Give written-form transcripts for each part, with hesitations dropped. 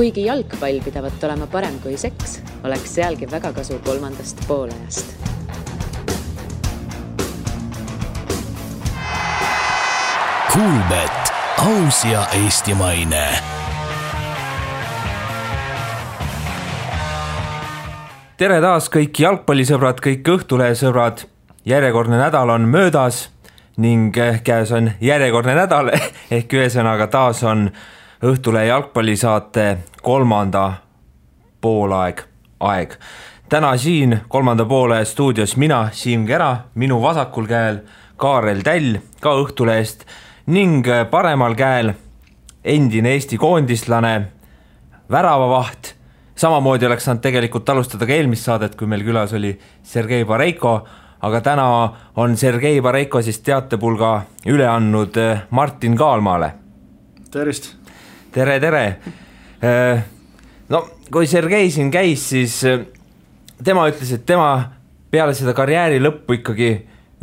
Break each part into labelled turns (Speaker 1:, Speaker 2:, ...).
Speaker 1: Kuigi jalgpall pidavat olema parem kui seks, oleks sealgi väga kasu kolmandast poolajast.
Speaker 2: Kuulbet, aus ja eestimaine.
Speaker 3: Tere taas kõik jalgpallisõbrad, kõik Õhtulehe sõbrad. Järjekordne nädal on möödas ning käes on järjekordne nädal ehk ühesõnaga taas on Õhtulehe jalgpallisaate kolmanda poolaeg. Täna siin kolmanda poole stuudios mina, Siim Kera, minu vasakul käel Kaarel Täll, ka Õhtulehest ning paremal käel endine Eesti koondislane, väravavaht. Samamoodi oleks saanud tegelikult alustada ka eelmist saadet, kui meil külas oli Sergei Bareiko, aga täna on Sergei Bareiko siis teatepulga üle andnud Martin Kaalmaale.
Speaker 4: Tervist!
Speaker 3: Tere! No, kui Sergei siin käis, siis tema ütles, et tema peale seda karjääri lõppu ikkagi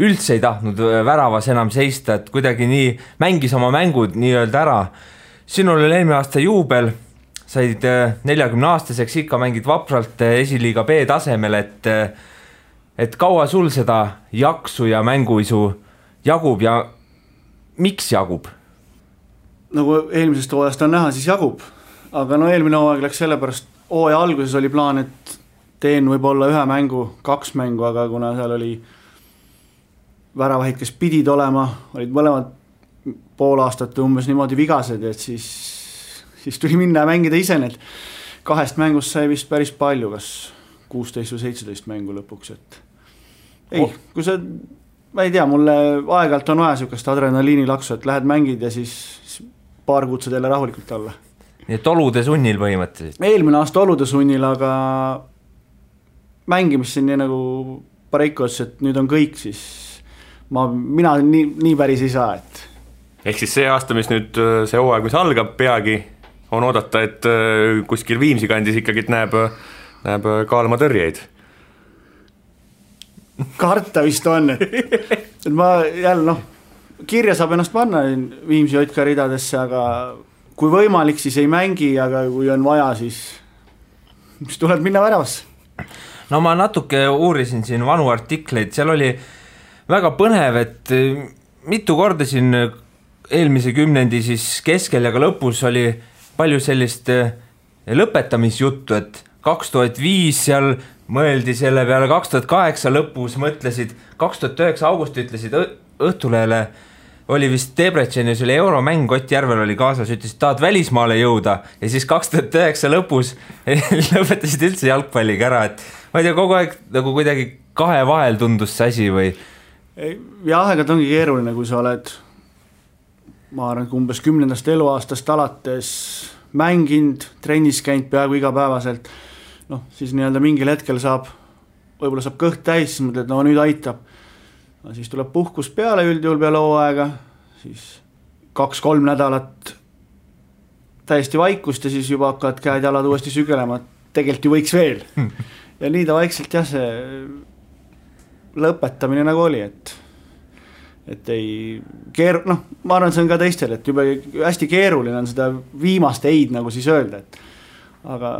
Speaker 3: üldse ei tahtnud väravas enam seista, et kuidagi nii mängis oma mängud nii-öelda ära. Sinul oli eelmine aasta juubel, said 40-aastaseks, ikka mängid vapralt esiliiga B tasemel, et kaua sul seda jaksu ja mänguisu jagub ja miks jagub?
Speaker 4: Nagu eelmisest hooajast on näha, siis jagub. Aga no eelmine hooaeg läks sellepärast, hooaja alguses oli plaan, et teen võib-olla 1 mängu, 2 mängu, aga kuna seal oli väravahid, kes pidid olema, olid mõlemad pool aastat umbes niimoodi vigased, et siis tuli minna ja mängida ise need 2 mängust sai vist päris palju, kas 16 või 17 mängu lõpuks, et kui see, ma ei tea, mulle aeg-ajalt on vaja sükast adrenaliini laksu, et lähed mängid ja siis paar kuud saad jälle rahulikult olla.
Speaker 3: Nii et olude sunnil põhimõtteliselt?
Speaker 4: Eelmine aasta olude sunnil, aga mängimist siin nii nagu Bareiko ütles, et nüüd on kõik, siis mina nii päris ei saa, et
Speaker 5: ehk siis see aasta, mis nüüd see hooaeg, mis algab peagi, on oodata, et kuskil Viimsi kandis ikkagi näeb Kaalma tõrjeid.
Speaker 4: Karta vist on, et ma jälle kirja saab ennast panna Viimsi Jotka ridadesse, aga kui võimalik, siis ei mängi, aga kui on vaja, siis tuleb minna väravasse.
Speaker 3: No ma natuke uurisin siin vanu artikleid, seal oli väga põnev, et mitu korda siin eelmise kümnendi siis keskel ja ka lõpus oli palju sellist lõpetamisjuttu, et 2005 seal mõeldi selle peale, 2008 lõpus mõtlesid, 2009 augusti ütlesid Õhtulehele, oli vist Debrecenil, see oli euromäng, Ott Järvel oli kaasas, ütlesid, tahad välismaale jõuda ja siis 2009 lõpus lõpetasid üldse jalgpalliga ära, et ma ei tea, kogu aeg nagu kuidagi kahe vahel tundus see asi või?
Speaker 4: Ja aegad ongi keeruline, kui sa oled ma arvan, umbes 10. eluaastast alates mänginud, trennis käinud peaaegu igapäevaselt, siis nii-öelda mingil hetkel võib-olla saab kõht täis, siis mõtled, nüüd aitab. Siis tuleb puhkus peale üldjuhul peale hooaega, siis 2-3 nädalat täiesti vaikust ja siis juba hakkavad käed jalad uuesti sügelema, tegelikult ju võiks veel. Ja nii ta vaikselt see lõpetamine nagu oli, et ei ma arvan, see on ka teistel, et juba hästi keeruline on seda viimast eid nagu siis öelda, et aga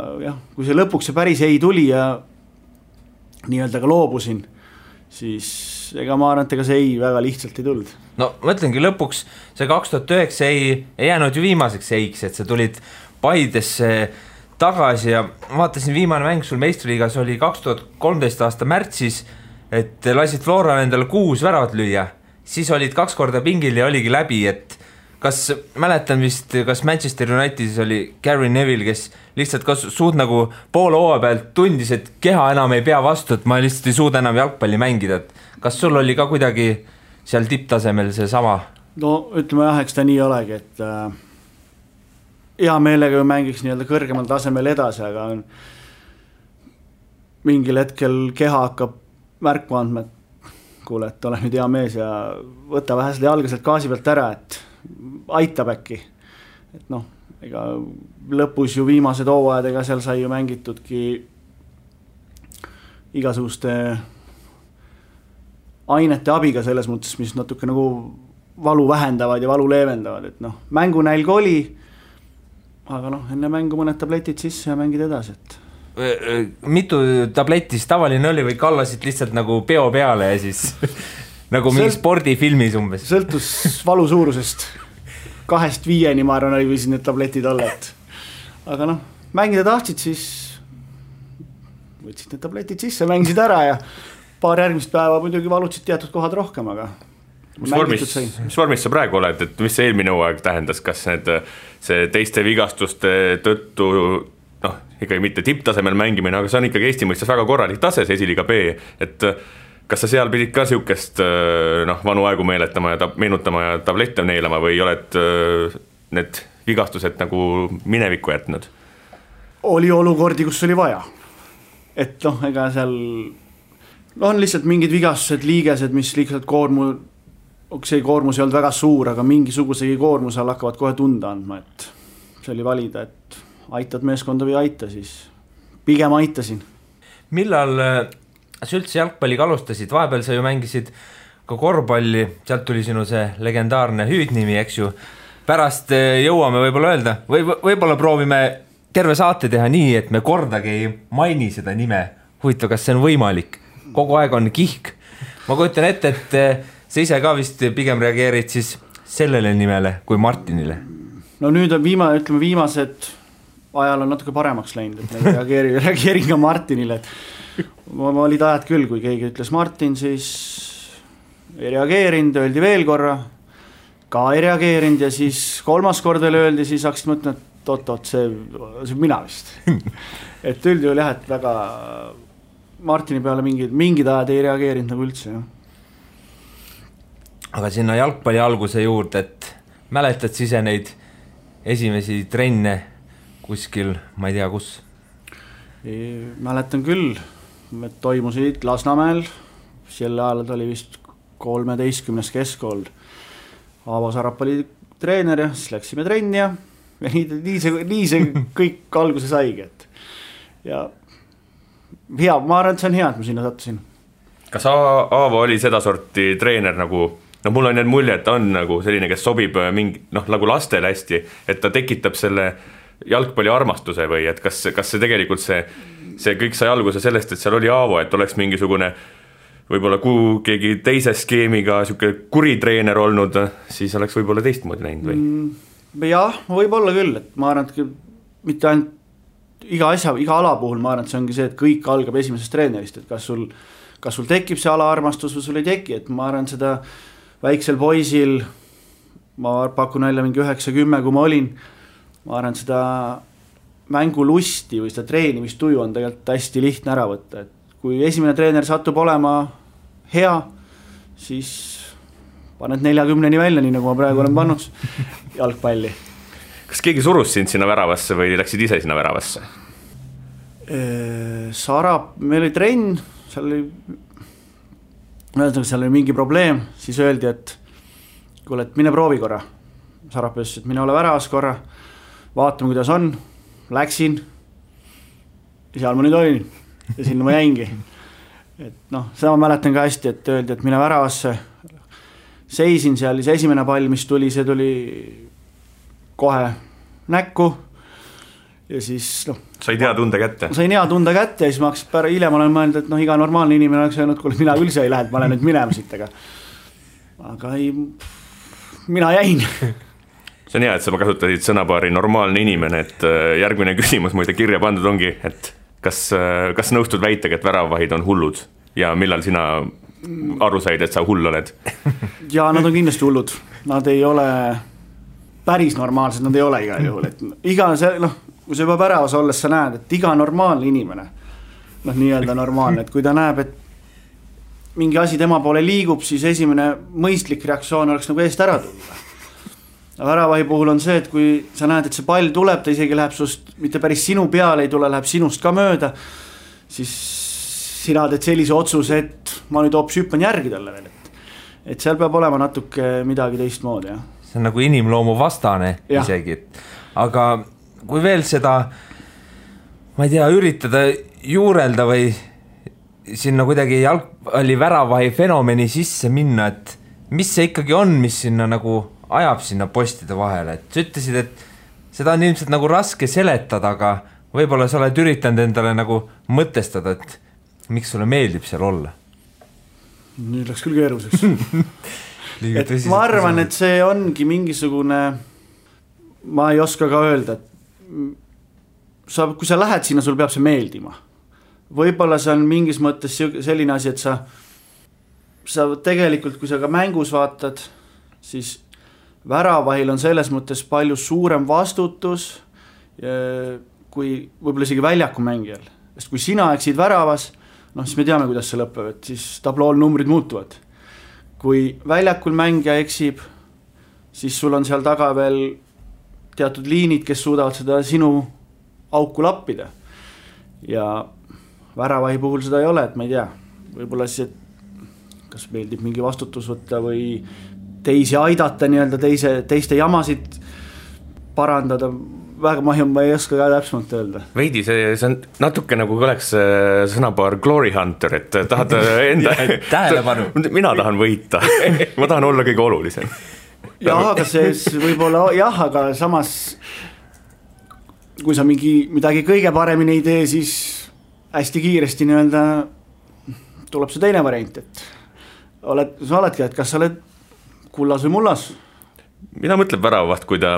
Speaker 4: kui see lõpuks see päris ei tuli ja nii-öelda ka loobusin, siis ega ma arvan, et ega see ei väga lihtsalt ei tulnud.
Speaker 3: No mõtlengi lõpuks, see 2009 ei jäänud ju viimaseks eiks, et sa tulid Paidesse tagasi ja vaatasin viimane mäng sul meistriliigas oli 2013 aasta märtsis, et lasid Flora endale 6 väravat lüüa. Siis olid 2 korda pingil ja oligi läbi, et kas mäletan vist, kas Manchester Unitedis oli Gary Neville, kes lihtsalt suud nagu poole hooaja pealt tundis, et keha enam ei pea vastu, et ma lihtsalt ei suuda enam jalgpalli mängida. Kas sul oli ka kuidagi seal tipptasemel see sama?
Speaker 4: No ütleme eks ta nii olegi, et hea meelega mängiks nii-öelda kõrgemal tasemel edasi, aga mingil hetkel keha hakkab märku andma, et kuule, et ole nüüd hea mees ja võta vähe seda jalga sealt gaasi pealt ära, et aitab äkki. Et ega lõpus ju viimased hooajadega seal sai ju mängitudki igasuguste ainete abiga selles mõttes, mis natuke nagu valu vähendavad ja valu leevendavad, et mängunälg oli, aga noh, enne mängu mõned tabletid sisse ja mängid edasi, et
Speaker 3: mitu tabletti siis tavaline oli või kallasid lihtsalt nagu peo peale ja siis nagu mingi spordifilmis umbes?
Speaker 4: Sõltus valu suurusest 2-5 ma arvan, oli võisid need tabletid olla, et aga noh, mängida tahtsid, siis võtsid need tabletid sisse, mängisid ära ja paar järgmist päeva muidugi valutsid teatud kohad rohkem, aga
Speaker 5: mis vormis sa praegu oled, et mis see eelmine hooaeg tähendas, kas see teiste vigastuste tõttu noh, ikkagi mitte tipptasemel mängimine, aga see on ikkagi Eesti mõistes väga korralik tase, see esiliiga B, et kas sa seal pidid ka siukest noh, vanu aegu meeletama ja meenutama ja tablette neelama või oled need vigastused nagu minevikku jätnud?
Speaker 4: Oli olukordi, kus oli vaja, et noh, ega seal on lihtsalt mingid vigastused, liigesed, mis lihtsalt see koormus ei olnud väga suur, aga mingisugusegi koormuse all hakkavad kohe tunda andma, et see oli valida, et aitad meeskonda või aita, siis pigem aitasin.
Speaker 3: Millal sa üldse jalgpalliga alustasid? Vahepeal sa ju mängisid ka korvpalli, sealt tuli sinu see legendaarne hüüdnimi, eks ju. Pärast jõuame võib-olla öelda, võib-olla proovime terve saate teha nii, et me kordagi ei maini seda nime. Huvitav, kas see on võimalik? Kogu aeg on kihk. Ma kujutan ette, et sa ise ka vist pigem reageerid siis sellele nimele kui Martinile.
Speaker 4: No nüüd on viimased ajal on natuke paremaks läinud, et reageerin ka Martinile, et ma olid ajad küll, kui keegi ütles Martin, siis ei reageerinud, öeldi veel korra, ka ei reageerinud ja siis kolmas kord veel öeldi, siis hakkasid mõtlema, et oot, see mina vist. Et üldjuhul jah, et väga Martini peale mingid ajad ei reageerinud nagu üldse, jah.
Speaker 3: Aga sinna jalgpalli alguse juurde, et mäletad siis neid esimesi trenne kuskil, ma ei tea kus?
Speaker 4: Mäletan küll, et toimusid Lasnamäel, sel ajal oli vist 13. keskkool. Aavo Sarap oli treener ja siis läksime trenni ja nii see kõik alguse saigi. Ja hea, ma arvan, et see on hea, et ma sinna sattusin.
Speaker 5: Kas Aavo oli seda sorti treener nagu, no mul on need mulje, et ta on nagu selline, kes sobib mingi, noh, nagu lastele hästi, et ta tekitab selle jalgpalli armastuse või et kas see tegelikult see kõik sai alguse sellest, et seal oli Aavo, et oleks mingisugune võib-olla keegi teise skeemiga siuke kuritreener olnud, siis oleks võib-olla teistmoodi näinud või?
Speaker 4: Jah, võib-olla küll, et ma arvan, et mitte ainult iga ala puhul, ma arvan, et see ongi see, et kõik algab esimesest treenerist, et kas sul tekib see ala armastus või sul ei teki, et ma arvan, seda väiksel poisil, ma pakun välja mingi 9-10, kui ma olin, ma arvan, et seda mängulusti või seda treenimistuju on tegelikult hästi lihtne ära võtta, et kui esimene treener satub olema hea, siis paned 40-ni välja, nii nagu ma praegu olen pannud jalgpalli.
Speaker 5: Kas keegi surus sind sinna väravasse või läksid ise sinna väravasse?
Speaker 4: Sarap, meil oli trenn, seal oli mingi probleem, siis öeldi, et kuule, et mine proovi korra. Sarap ütles, et mine ole väravas korra, vaatame, kuidas on, läksin ja seal ma nüüd olin ja sinna ma jäingi. Et noh, seda ma mäletan ka hästi, et öeldi, et mine väravasse, seisin seal, see esimene pall, mis tuli, see tuli kohe näkku ja siis noh.
Speaker 5: Said hea tunde kätte?
Speaker 4: Sain hea tunde kätte ja siis ma hakkasin hiljem olen mõelnud, et noh, iga normaalne inimene oleks öelnud, kuule, mina üldse ei lähe, et ma olen nüüd minema siit, aga ei, mina jäin.
Speaker 5: See on hea, et sa kasutasid sõnapaari normaalne inimene, et järgmine küsimus muide kirja pandud ongi, et kas nõustud väitega, et väravahid on hullud ja millal sina aru said, et sa hull oled?
Speaker 4: Ja nad on kindlasti hullud, nad ei ole päris normaalsed, nad ei ole igal juhul, et iga see, noh, kui sa juba väravas olles sa näed, et iga normaalne inimene, noh, nii-öelda normaalne, et kui ta näeb, et mingi asi tema poole liigub, siis esimene mõistlik reaktsioon oleks nagu eest ära tulla. Väravahi puhul on see, et kui sa näed, et see pall tuleb, ta isegi läheb sust, mitte päris sinu peale ei tule, läheb sinust ka mööda, siis sina teed sellise otsuse, et ma nüüd hoopis hüppan järgi talle veel, et seal peab olema natuke midagi teistmoodi, jah.
Speaker 3: See on nagu inimloomu vastane ja. Isegi, aga kui veel seda, ma ei tea, üritada juurelda või sinna kuidagi jalgpalli väravahi fenomeni sisse minna, et mis see ikkagi on, mis sinna nagu ajab sinna postide vahele, et sa ütlesid, et seda on ilmselt nagu raske seletada, aga võib-olla sa oled üritanud endale nagu mõtestada, et miks sulle meeldib seal olla?
Speaker 4: Nüüd läks küll keeruliseks. Et ma arvan, et see ongi mingisugune, ma ei oska ka öelda, et kui sa lähed sinna, sul peab see meeldima. Võib-olla see on mingis mõttes selline asi, et sa tegelikult, kui sa ka mängus vaatad, siis väravahil on selles mõttes palju suurem vastutus kui võib-olla isegi väljaku mängijal. Sest kui sina eksid väravas, siis me teame, kuidas see lõpeb, et siis tablool numbrid muutuvad. Kui väljakul mängija eksib, siis sul on seal taga veel teatud liinid, kes suudavad seda sinu auku lappida. Ja väravahi puhul seda ei ole, et ma ei tea, võib-olla siis, kas meeldib mingi vastutus võtta või teisi aidata, nii-öelda teiste jamasid parandada, väga ma ei oska ka täpsemalt öelda.
Speaker 5: Veidi, see on natuke nagu oleks sõnapaar Glory Hunter, et tahad enda
Speaker 3: tähelepanu.
Speaker 5: Mina tahan võita, ma tahan olla kõige olulisem.
Speaker 4: Jah, aga see võib-olla, jah, aga samas kui sa midagi kõige paremini ei tee, siis hästi kiiresti nii-öelda tuleb see teine variant, et sa oledki, et kas sa oled kullas või mullas?
Speaker 5: Mida mõtleb väravaht, kui ta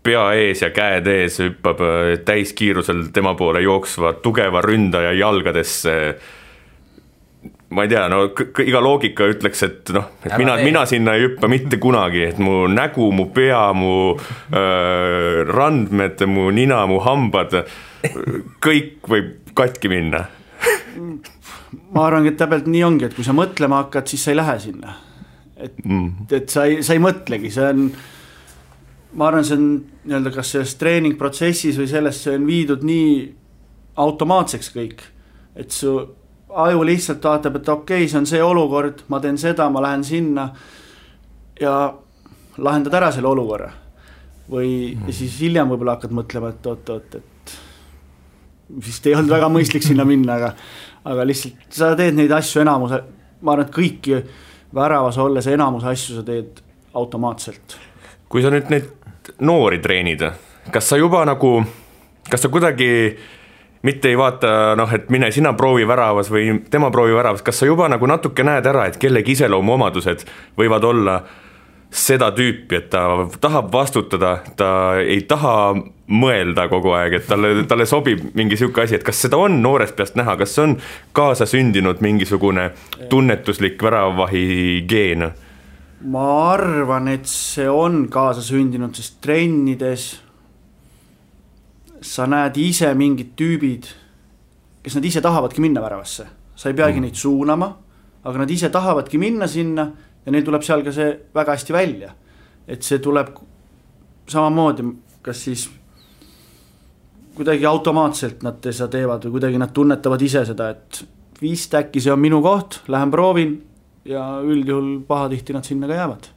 Speaker 5: pea ees ja käed ees hüppab täiskiirusel tema poole jooksva tugeva ründaja jalgadesse? Ma ei tea, iga loogika ütleks, et mina sinna ei hüppa mitte kunagi, et mu nägu, mu pea, mu randmed, mu nina, mu hambad, kõik võib katki minna.
Speaker 4: Ma arvan, et täpselt nii ongi, et kui sa mõtlema hakkad, siis sa ei lähe sinna. Et sa ei mõtlegi, see on, ma arvan, see on nii-öelda kas selles treeningprotsessis või sellest see on viidud nii automaatseks kõik, et su aju lihtsalt vaatab, et okei, see on see olukord, ma teen seda, ma lähen sinna ja lahendad ära selle olukorra. Või siis hiljem võib-olla hakkad mõtlema, et oot, vist ei olnud väga mõistlik sinna minna, aga lihtsalt sa teed neid asju enamuse, ma arvan, et kõiki väravas olles enamuse asju sa teed automaatselt.
Speaker 5: Kui sa nüüd neid noori treenid, kas sa juba nagu, kas sa kuidagi mitte ei vaata, et mine sina proovi väravas või tema proovi väravas, kas sa juba nagu natuke näed ära, et kellegi iseloomu omadused võivad olla seda tüüpi, et ta tahab vastutada, ta ei taha mõelda kogu aeg, et talle sobib mingi siuke asi, et kas seda on noorest peast näha, kas on kaasa sündinud mingisugune tunnetuslik väravavahi geen?
Speaker 4: Ma arvan, et see on kaasa sündinud, sest trennides sa näed ise mingid tüübid, kes nad ise tahavadki minna väravasse. Sa ei peagi neid suunama, aga nad ise tahavadki minna sinna ja neil tuleb seal ka see väga hästi välja. Et see tuleb samamoodi, kas siis kuidagi automaatselt nad seda teevad või kuidagi nad tunnetavad ise seda, et vist äkki see on minu koht, lähen proovin ja üldjuhul pahatihti nad sinna ka jäävad.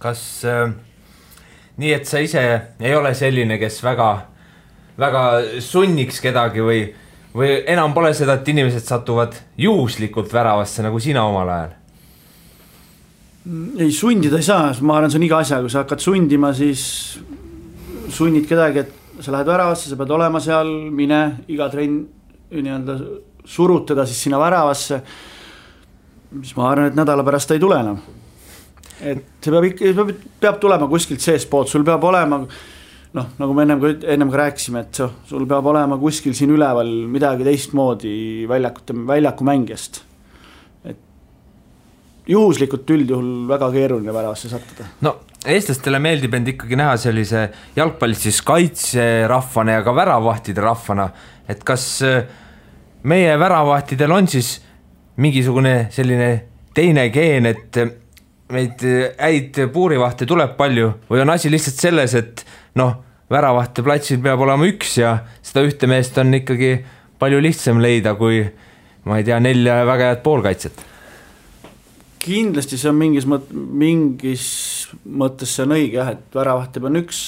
Speaker 3: Kas nii, et sa ise ei ole selline, kes väga sunniks kedagi või enam pole seda, et inimesed satuvad juhuslikult väravasse nagu sina omal ajal?
Speaker 4: Ei, sundida ei saa, ma arvan, see on iga asja, kui sa hakkad sundima, siis sunnid kedagi, et sa lähed väravasse, sa pead olema seal, mine iga trenn nii-öelda surutada siis sinna väravasse, mis ma arvan, et nädala pärast ei tule enam. Et see peab tulema kuskilt sees poolt, sul peab olema, nagu me ennem ka rääkisime, et sul peab olema kuskil siin üleval midagi teistmoodi väljaku mängijast. Et juhuslikult üldjuhul väga keeruline väravasse sattuda.
Speaker 3: No, eestlastele meeldib end ikkagi näha sellise jalgpallis siis kaitserahvana ja ka väravahtide rahvana, et kas meie väravahtidel on siis mingisugune selline teine geen, et meid häid puurivahte tuleb palju või on asi lihtsalt selles, et väravahte platsil peab olema üks ja seda ühte meest on ikkagi palju lihtsam leida kui, ma ei tea, 4 väga head poolkaitset.
Speaker 4: Kindlasti see on mingis mõttes see on õige, jah, et väravahte on üks,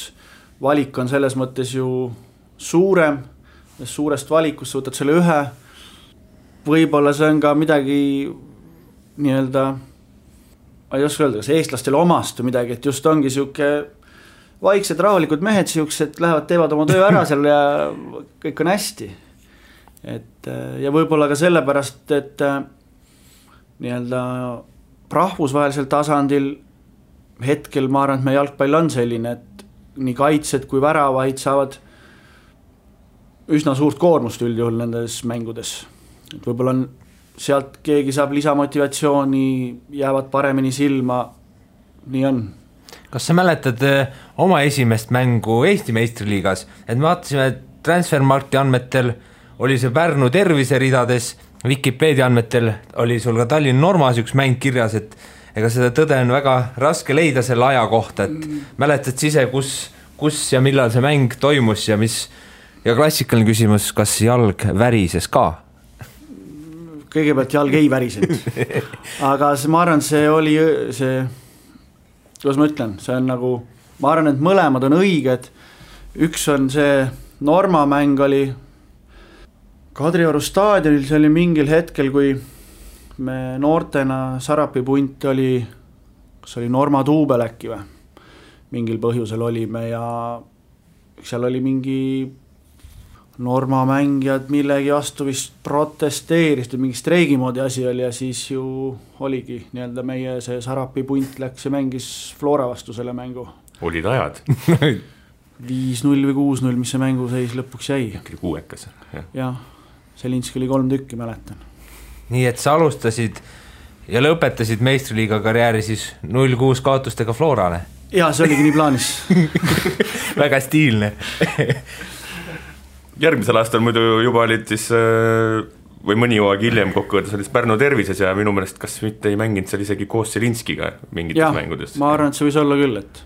Speaker 4: valik on selles mõttes ju suurem, suurest valikust võtad selle ühe, võib-olla see on ka midagi nii-öelda ma ei oska öelda, kas eestlastele omast või midagi, et just ongi siuke vaiksed rahulikud mehed siuksed lähevad, teevad oma töö ära seal ja kõik on hästi. Et ja võib-olla ka sellepärast, et nii-öelda rahvusvahelisel tasandil hetkel ma arvan, et meie jalgpall on selline, et nii kaitsed kui väravaid saavad üsna suurt koormust üldjuhul nendes mängudes. Et võib-olla on sealt keegi saab lisamotivatsiooni, jäävad paremini silma, nii on.
Speaker 3: Kas sa mäletad oma esimest mängu Eesti meistriliigas, et me vaatasime Transfermarkti andmetel oli see Pärnu terviseridades, Wikipedia andmetel oli sul ka Tallinn Normas üks mäng kirjas, et ega seda tõde on väga raske leida selle aja kohta, et mäletad ise, kus ja millal see mäng toimus ja mis, ja klassikaline küsimus, kas jalg värises ka?
Speaker 4: Kõigepealt jalg ei värisenud, aga ma arvan, see oli see, kuidas ma ütlen, see on nagu, ma arvan, et mõlemad on õiged, üks on see Norma mäng oli Kadrioru staadionil, see oli mingil hetkel, kui me noortena Sarapi punt oli, kas oli Norma duubel äkki või, mingil põhjusel olime ja seal oli mingi Norma mängijad millegi vastu vist protesteerisid, mingi streigimoodi asi oli ja siis ju oligi nii-öelda meie see Sarapi punt läks ja mängis Flora vastu selle mängu.
Speaker 5: Olid ajad?
Speaker 4: 5-0 või 6-0, mis see mängu seis lõpuks jäi.
Speaker 5: Äkki kuuekas.
Speaker 4: Jah, Selinski oli 3 tükki, mäletan.
Speaker 3: Nii et sa alustasid ja lõpetasid meistriliiga karjääri siis 0-6 kaotustega Florale?
Speaker 4: Jaa, see oligi nii plaanis.
Speaker 3: Väga stiilne.
Speaker 5: Järgmisel aastal muidu juba olid siis või mõni hooaeg hiljem kokkuvõttes olid Pärnu tervises ja minu meelest kas mitte ei mänginud seal isegi koos Selinskiga mingites mängudes.
Speaker 4: Ma arvan, et see võis olla küll, et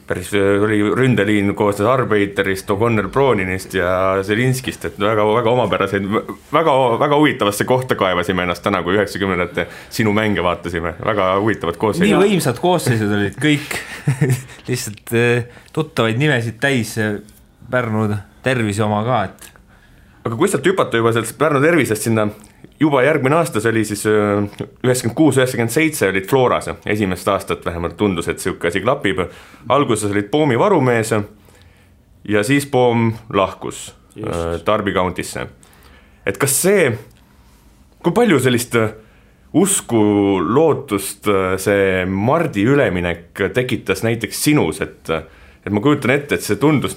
Speaker 5: päris oli ründeliin koosnes Arbeiterist, O'Connor Brooninist ja Selinskist, et väga omapäraseid, väga huvitavasse kohta kaevasime ennast täna, kui 90-ndate sinu mänge vaatasime, väga huvitavad koosseisud.
Speaker 3: Nii võimsad koosseisud olid kõik, lihtsalt tuttavaid nimesid täis Pärnu tervise oma ka, et
Speaker 5: aga kui sealt hüpata juba sellest Pärnu tervisest sinna, juba järgmine aasta, see oli siis 96-97 olid Floras, esimest aastat vähemalt tundus, et siuke asi klapib. Alguses olid Poomi varumees ja siis Poom lahkus Darby Countisse. Et kas see, kui palju sellist usku, lootust see Mardi üleminek tekitas näiteks sinus, et ma kujutan ette, et see tundus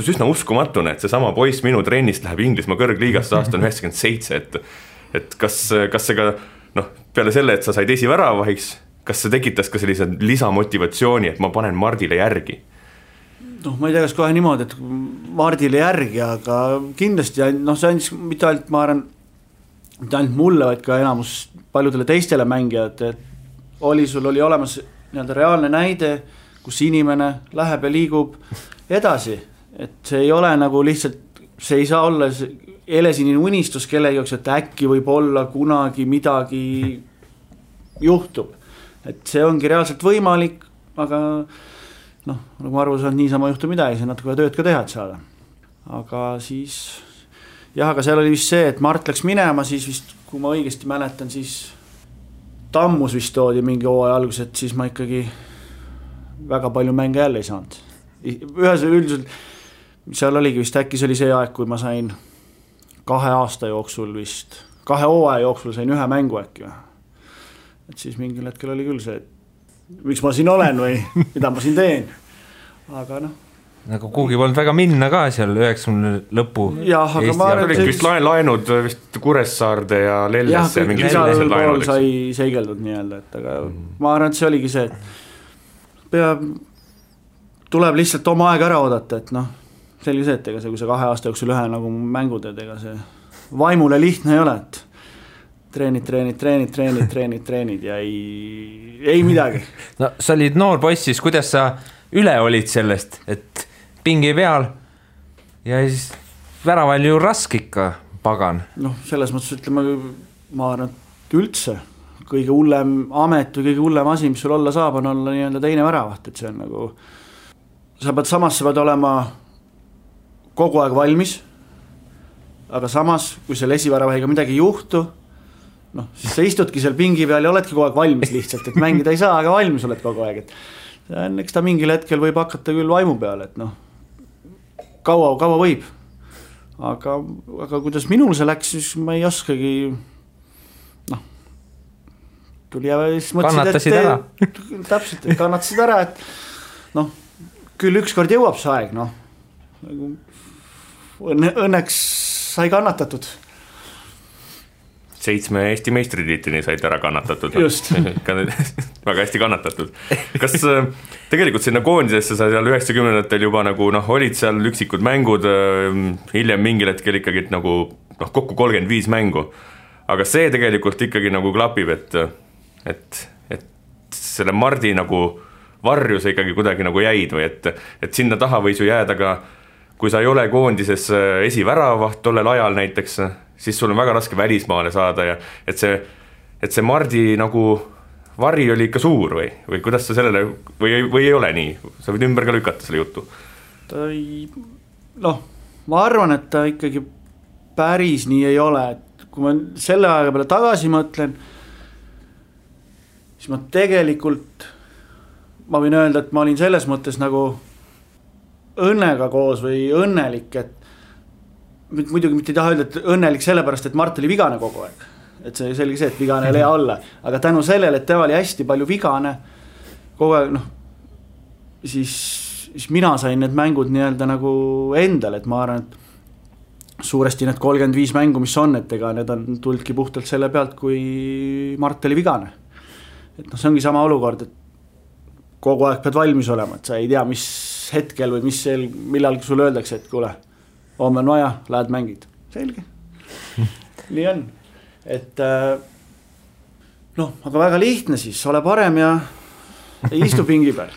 Speaker 5: üsna uskumatune, et see sama poiss minu trennist läheb Inglismaa kõrgliigasse aasta 97, et kas see ka, peale selle, et sa said esiväravahiks, kas see tekitas ka sellise lisamotivatsiooni, et ma panen Mardile järgi?
Speaker 4: Ma ei tea, kas kohe niimoodi, et Mardile järgi, aga kindlasti, see andis mitte ainult, ma arvan, mitte ainult mulle, vaid ka enamus paljudele teistele mängijad, et sul oli olemas nii-öelda reaalne näide, kus inimene läheb ja liigub edasi. Et see ei ole nagu lihtsalt, see ei saa olla helesinine unistus kellegi jaoks, et äkki võib olla kunagi midagi juhtub. Et see ongi reaalselt võimalik, aga nagu ma arvan, et niisama juhtub midagi, see natuke tööd ka teha, et saada. Aga siis, aga seal oli vist see, et Mart läks minema, siis vist, kui ma õigesti mäletan, siis Tammus vist toodi mingi hooaja algus, et siis ma ikkagi väga palju mänge jälle ei saanud. Üldiselt seal oligi vist äkki see oli see aeg, kui ma sain 2 aasta jooksul vist, 2 hooaja jooksul sain 1 mängu äkki. Et siis mingil hetkel oli küll see, et miks ma siin olen või mida ma siin teen. Aga
Speaker 3: nagu kuhugi polnud väga minna ka seal 90 lõpu.
Speaker 4: Jah, aga ma arvan,
Speaker 5: et vist laenud vist Kuressaarde ja Lelles ja mingi
Speaker 4: sellised laenud sai seigeldud nii-öelda, et aga ma arvan, et see oligi see, et tuleb lihtsalt oma aeg ära oodata, et selge see, et ega see, kui sa 2 aasta jooksul 1 nagu mängu teed, ega see vaimule lihtne ei ole, et treenid ja ei midagi.
Speaker 3: Sa olid noor poiss, siis kuidas sa üle olid sellest, et pingi peal ja siis väraval ju raske ikka, pagan?
Speaker 4: Selles mõttes ütleme, ma arvan, et üldse kõige hullem amet või kõige hullem asi, mis sul olla saab, on olla nii-öelda teine väravaht, et see on nagu sa pead olema kogu aeg valmis, aga samas, kui seal esiväravahiga midagi ei juhtu, siis sa istudki seal pingi peal ja oledki kogu aeg valmis lihtsalt, et mängida ei saa, aga valmis oled kogu aeg, et eks ta mingil hetkel võib hakata küll vaimu peale, et noh, kaua võib. Aga kuidas minul see läks, siis ma ei oskagi, noh, tuli ja siis
Speaker 3: kannatasid ära.
Speaker 4: Täpselt, kannatasid ära, et noh, küll ükskord jõuab see aeg, noh, õnneks sai kannatatud.
Speaker 5: 7 Eesti meistritiitlini said ära kannatatud.
Speaker 4: Just.
Speaker 5: Väga hästi kannatatud. Kas tegelikult sinna koondisesse sa seal 90-ndatel juba nagu olid seal üksikud mängud, hiljem mingil hetkel ikkagi nagu kokku 35 mängu. Aga see tegelikult ikkagi nagu klapib, et selle Mardi nagu varju sa ikkagi kuidagi nagu jäid või et sinna taha võis ju jääda ka, kui sa ei ole koondises esiväravaht tollel ajal näiteks, siis sul on väga raske välismaale saada ja et see Mardi nagu vari oli ikka suur või kuidas sa sellele, või ei ole nii? Sa võid ümber ka lükata selle jutu.
Speaker 4: Ma arvan, et ta ikkagi päris nii ei ole, et kui ma selle aega peale tagasi mõtlen, siis ma tegelikult, ma võin öelda, et ma olin selles mõttes nagu õnnega koos või õnnelik, et muidugi mitte ei taha öelda, et õnnelik sellepärast, et Mart oli vigane kogu aeg. Et see selge see, et vigane ei lea olla. Aga tänu sellele, et tema oli hästi palju vigane kogu aeg, siis mina sain need mängud nii-öelda nagu endale, et ma arvan, et suuresti need 35 mängu, mis on, et ega need on tuldki puhtalt selle pealt, kui Mart oli vigane. Et see ongi sama olukord, et kogu aeg pead valmis olema, et sa ei tea, mis hetkel või millal sul öeldakse, et kuule, homme on vaja, lähed mängid. Selge. Nii on. Et aga väga lihtne siis, ole parem ja istu pingi peal.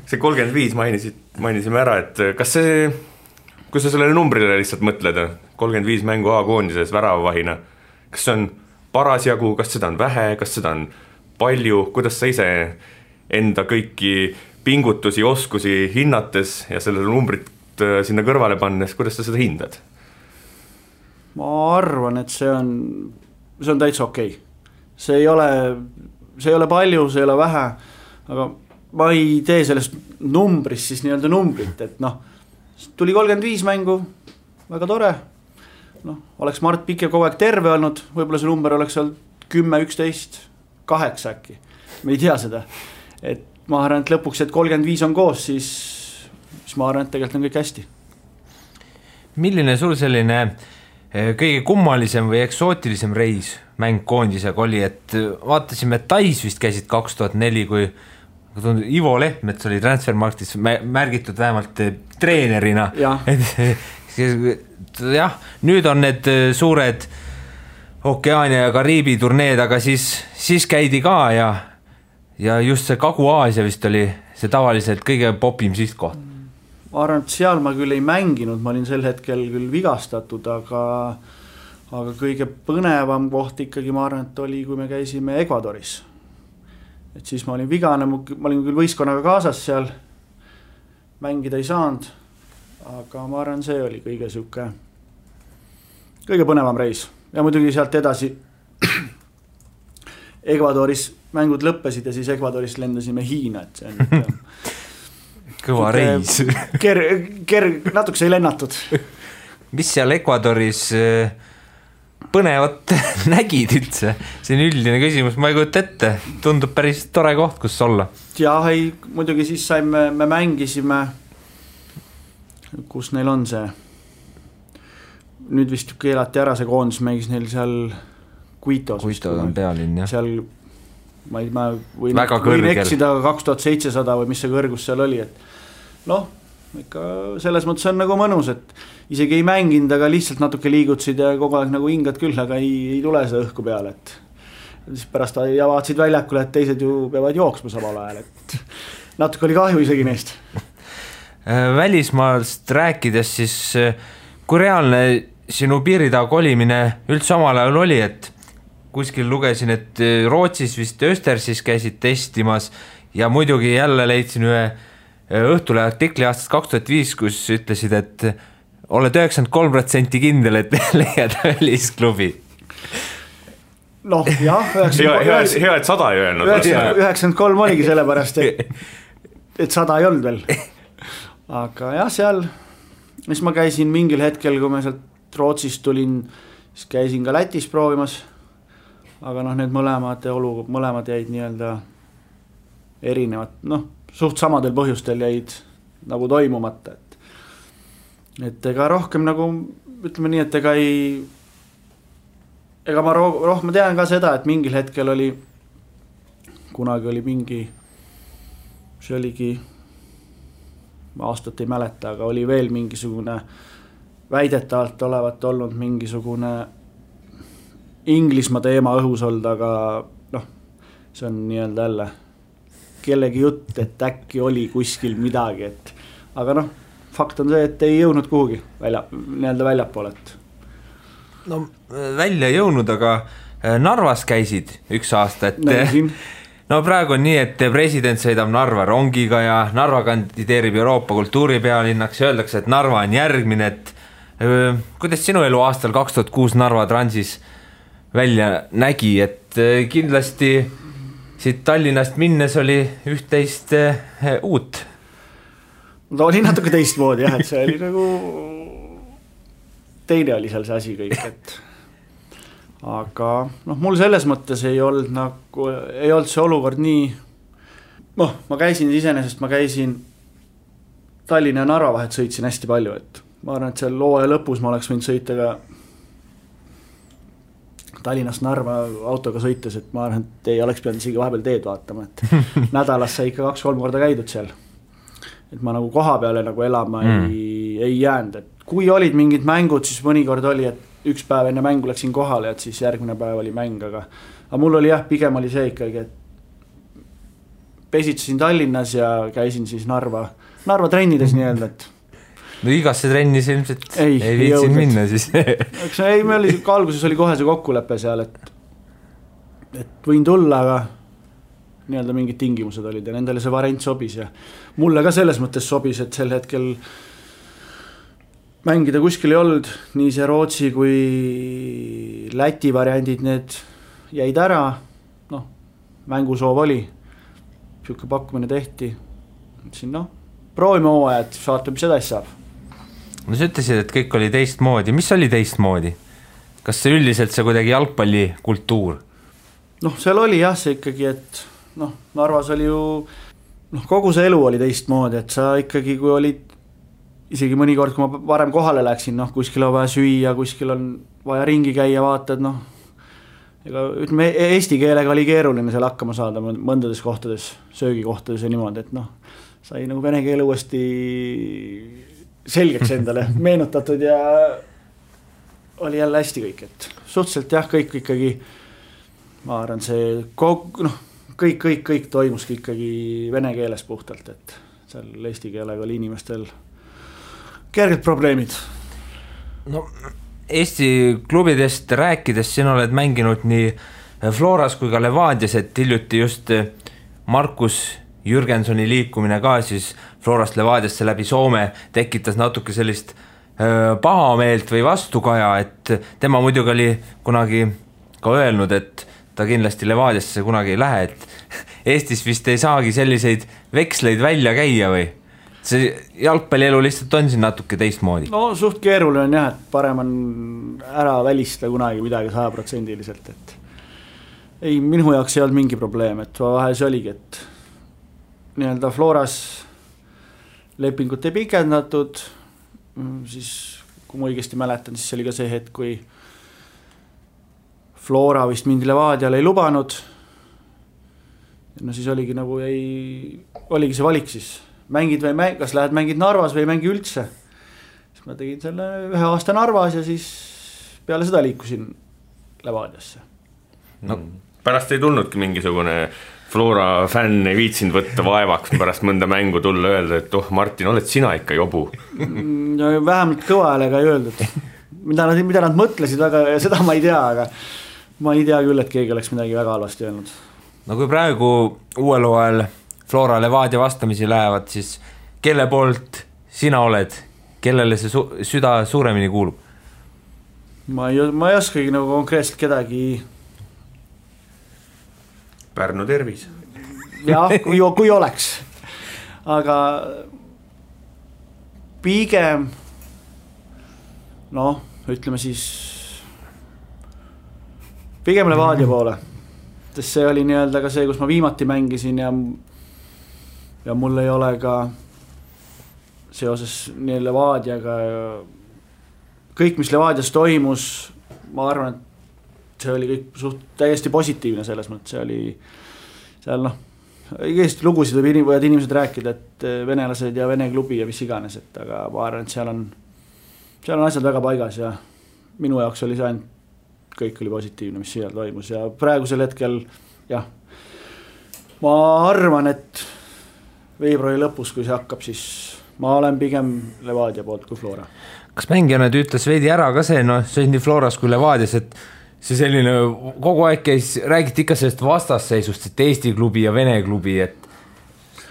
Speaker 5: See 35 mainisime ära, et kas see, kui sa sellele numbrile lihtsalt mõtled, 35 mängu A-koondises väravavahina, kas see on parasjagu, kas seda on vähe, kas seda on palju, kuidas sa ise enda kõiki pingutusi, oskusi hinnates ja sellele numbrit sinna kõrvale pannes, kuidas sa seda hindad?
Speaker 4: Ma arvan, et see on täitsa okei. See ei ole palju, see ei ole vähe, aga ma ei tee sellest numbrist siis nii-öelda numbrit, et tuli 35 mängu, väga tore, oleks Mart Pikk ja kogu aeg terve olnud, võib-olla see number oleks olnud 10, 11, 8 äkki, me ei tea seda, et ma arvan, et lõpuks, et 35 on koos, siis ma arvan, et tegelikult on kõik hästi.
Speaker 3: Milline sul selline kõige kummalisem või eksootilisem reis mäng koondisega oli, et vaatasime, et Tais vist käisid 2004, kui Ivo Lehtmets oli Transfermarktis märgitud vähemalt treenerina. Jah, nüüd on need suured Okeaania ja Kariibi turneed, aga siis käidi ka ja just see Kagu-Aasia vist oli see tavaliselt kõige popim sihtkoht.
Speaker 4: Ma arvan, et seal ma küll ei mänginud, ma olin sel hetkel küll vigastatud, aga kõige põnevam koht ikkagi ma arvan, et oli, kui me käisime Ecuadoris. Et siis ma olin vigane, ma olin küll võistkonnaga kaasas seal, mängida ei saanud, aga ma arvan, see oli kõige põnevam reis. Ja muidugi sealt edasi Ecuadoris mängud lõppesid ja siis Ecuadoris lendasime Hiina, et see on
Speaker 3: kõva reis.
Speaker 4: Natuke sai lennatud.
Speaker 3: Mis seal Ecuadoris põnevat nägid üldse? See on üldine küsimus, ma ei kujuta ette. Tundub päris tore koht, kus olla.
Speaker 4: Jah, muidugi siis me mängisime, kus neil on see. Nüüd vist keelati ära see koondis, mängis neil seal Quito's.
Speaker 3: Quito on pealinn, jah.
Speaker 4: Seal ma võin eksida 2700 või mis see kõrgus seal oli, et ikka selles mõttes on nagu mõnus, et isegi ei mänginud, aga lihtsalt natuke liigutsid ja kogu aeg nagu hingad küll, aga ei tule see õhku peale, et siis pärast vaatasid väljakule, et teised ju peavad jooksma samal ajal, et natuke oli kahju isegi neist.
Speaker 3: Välismaast rääkides siis, kui reaalne sinu piiritaha kolimine üldse omal ajal oli, et kuskil lugesin, et Rootsis vist Östersis käisid testimas ja muidugi jälle leidsin ühe Õhtule artikli aastast 2005, kus ütlesid, et oled 93% kindel, et leiad välisklubi.
Speaker 4: Jah,
Speaker 5: hea, et 100 ei öelnud.
Speaker 4: 93 oligi sellepärast, et et 100 ei olnud veel. Aga jah, seal, mis ma käisin mingil hetkel, kui ma sealt Rootsist tulin, siis käisin ka Lätis proovimas, aga noh, need mõlemad jäid nii-öelda erinevad, noh, suht samadel põhjustel jäid nagu toimumata, et ega rohkem nagu, ütleme nii, et ega ma rohkem tean ka seda, et mingil hetkel kunagi oli mingi, see oligi, ma aastat ei mäleta, aga oli veel mingisugune väidetavalt olevat olnud mingisugune Inglismaa teema õhus olnud, aga noh, see on nii-öelda jälle kellegi jutt, et äkki oli kuskil midagi, aga noh, fakt on see, et ei jõudnud kuhugi nii-öelda väljapoole.
Speaker 3: No välja ei jõudnud, aga Narvas käisid üks aasta, no praegu on nii, et president sõidab Narva rongiga ja Narva kandideerib Euroopa kultuuripealinnaks ja öeldakse, et Narva on järgmine, et kuidas sinu elu aastal 2006 Narva Transis välja nägi, et kindlasti siit Tallinnast minnes oli üht-teist uut?
Speaker 4: Ta oli natuke teistmoodi jah, et see oli nagu teine oli seal see asi kõik, et aga noh, mul selles mõttes ei olnud see olukord nii, noh, ma käisin Tallinna ja Narva vahet sõitsin hästi palju, et ma arvan, et seal hooaja lõpus ma oleks võinud sõita ka Tallinnast Narva autoga sõites, et ma arvan, et ei oleks pidanud isegi vahepeal teed vaatama, et nädalas sai ikka 2-3 korda käidud seal. Et ma nagu koha peale nagu elama ei jäänud, et kui olid mingid mängud, siis mõnikord oli, et üks päev enne mängu läksin kohale, et siis järgmine päev oli mäng, aga mul oli jah, pigem oli see ikkagi, et pesitsesin Tallinnas ja käisin siis Narva trennides nii-öelda, et
Speaker 3: no igasse trennis ilmselt ei viitsin minna siis.
Speaker 4: Ei, meil oli alguses oli kohe see kokkulepe seal, et võin tulla, aga nii-öelda mingid tingimused olid ja nendele see variant sobis ja mulle ka selles mõttes sobis, et sel hetkel mängida kuskil ei olnud, nii see Rootsi kui Läti variandid, need jäid ära, noh, mängusoov oli, siuke pakkumine tehti, siin noh, proovime hooaja, et vaatame, mis edasi saab.
Speaker 3: No sa ütlesid, et kõik oli teistmoodi, mis oli teistmoodi? Kas see üldiselt see kuidagi jalgpallikultuur?
Speaker 4: Noh, seal oli jah see ikkagi, et noh, Narvas oli ju, noh, kogu see elu oli teistmoodi, et sa ikkagi, kui olid isegi mõnikord, kui ma varem kohale läksin, noh, kuskil on vaja süüa, kuskil on vaja ringi käia, vaatad, noh, ega ütleme, eesti keelega oli keeruline seal hakkama saada mõndades kohtades, söögikohtades ja niimoodi, et noh, sai nagu vene keele uuesti selgeks endale meenutatud ja oli jälle hästi kõik, et suhteliselt jah, kõik ikkagi, ma arvan, see noh, kõik toimuski ikkagi vene keeles puhtalt, et seal eesti keelega oli inimestel kerged probleemid.
Speaker 3: No Eesti klubidest rääkides, sina oled mänginud nii Floras kui ka Levadias, et hiljuti just Markus Jürgensoni liikumine ka siis Florast Levadiasse läbi Soome tekitas natuke sellist pahameelt või vastukaja, et tema muidugi oli kunagi ka öelnud, et ta kindlasti Levadiasse kunagi ei lähe, et Eestis vist ei saagi selliseid veksleid välja käia või? See jalgpallielu lihtsalt on siin natuke teistmoodi.
Speaker 4: No suht keeruline on jah, et parem on ära välista kunagi midagi 100%, et ei, minu jaoks ei olnud mingi probleem, et vahel see oligi, et nii-öelda Floras lepingut ei pikendatud, siis kui ma õigesti mäletan, siis oli ka see hetk, kui Flora vist mind Levadiale ei lubanud, no siis oligi nagu oligi see valik siis, mängid või kas lähed mängid Narvas või mängi üldse. Siis ma tegin selle 1 aasta Narvas ja siis peale seda liikusin Levadiasse.
Speaker 5: No, pärast ei tulnudki mingisugune Flora fänn ei viitsinud võtta vaevaks pärast mõnda mängu tulla öelda, et Martin, oled sina ikka jobu?
Speaker 4: No, vähemalt kõva häälega ei öeldud. Mida nad mõtlesid väga, seda ma ei tea, aga ma ei tea küll, et keegi oleks midagi väga halvasti öelnud.
Speaker 3: No kui praegu uuel hooajal Flora Levadia vastamisi lähevad, siis kelle poolt sina oled? Kellele see süda suuremini kuulub?
Speaker 4: Ma ei oskagi nagu konkreetselt kedagi.
Speaker 5: Pärnu tervis.
Speaker 4: Jah, kui oleks. aga pigem noh, ütleme siis pigem Levadia poole, sest see oli nii-öelda ka see, kus ma viimati mängisin ja mul ei ole ka seoses nii Levadiaga kõik, mis Levadias toimus, ma arvan, et see oli kõik täiesti positiivne selles mõttes, see oli seal noh, igast lugusid võivad inimesed rääkida, et venelased ja Vene klubi ja mis iganes, et aga ma arvan, et seal on asjad väga paigas ja minu jaoks oli see ainult, kõik oli positiivne, mis seal toimus ja praegusel hetkel jah, ma arvan, et veebruari lõpus, kui see hakkab, siis ma olen pigem Levadia poolt kui Flora.
Speaker 3: Kas mängijana ütles veidi ära ka see, noh, see on nii Floras kui Levadias, et see selline kogu aeg käis, räägiti ikka sellest vastasseisust, et Eesti klubi ja Vene klubi, et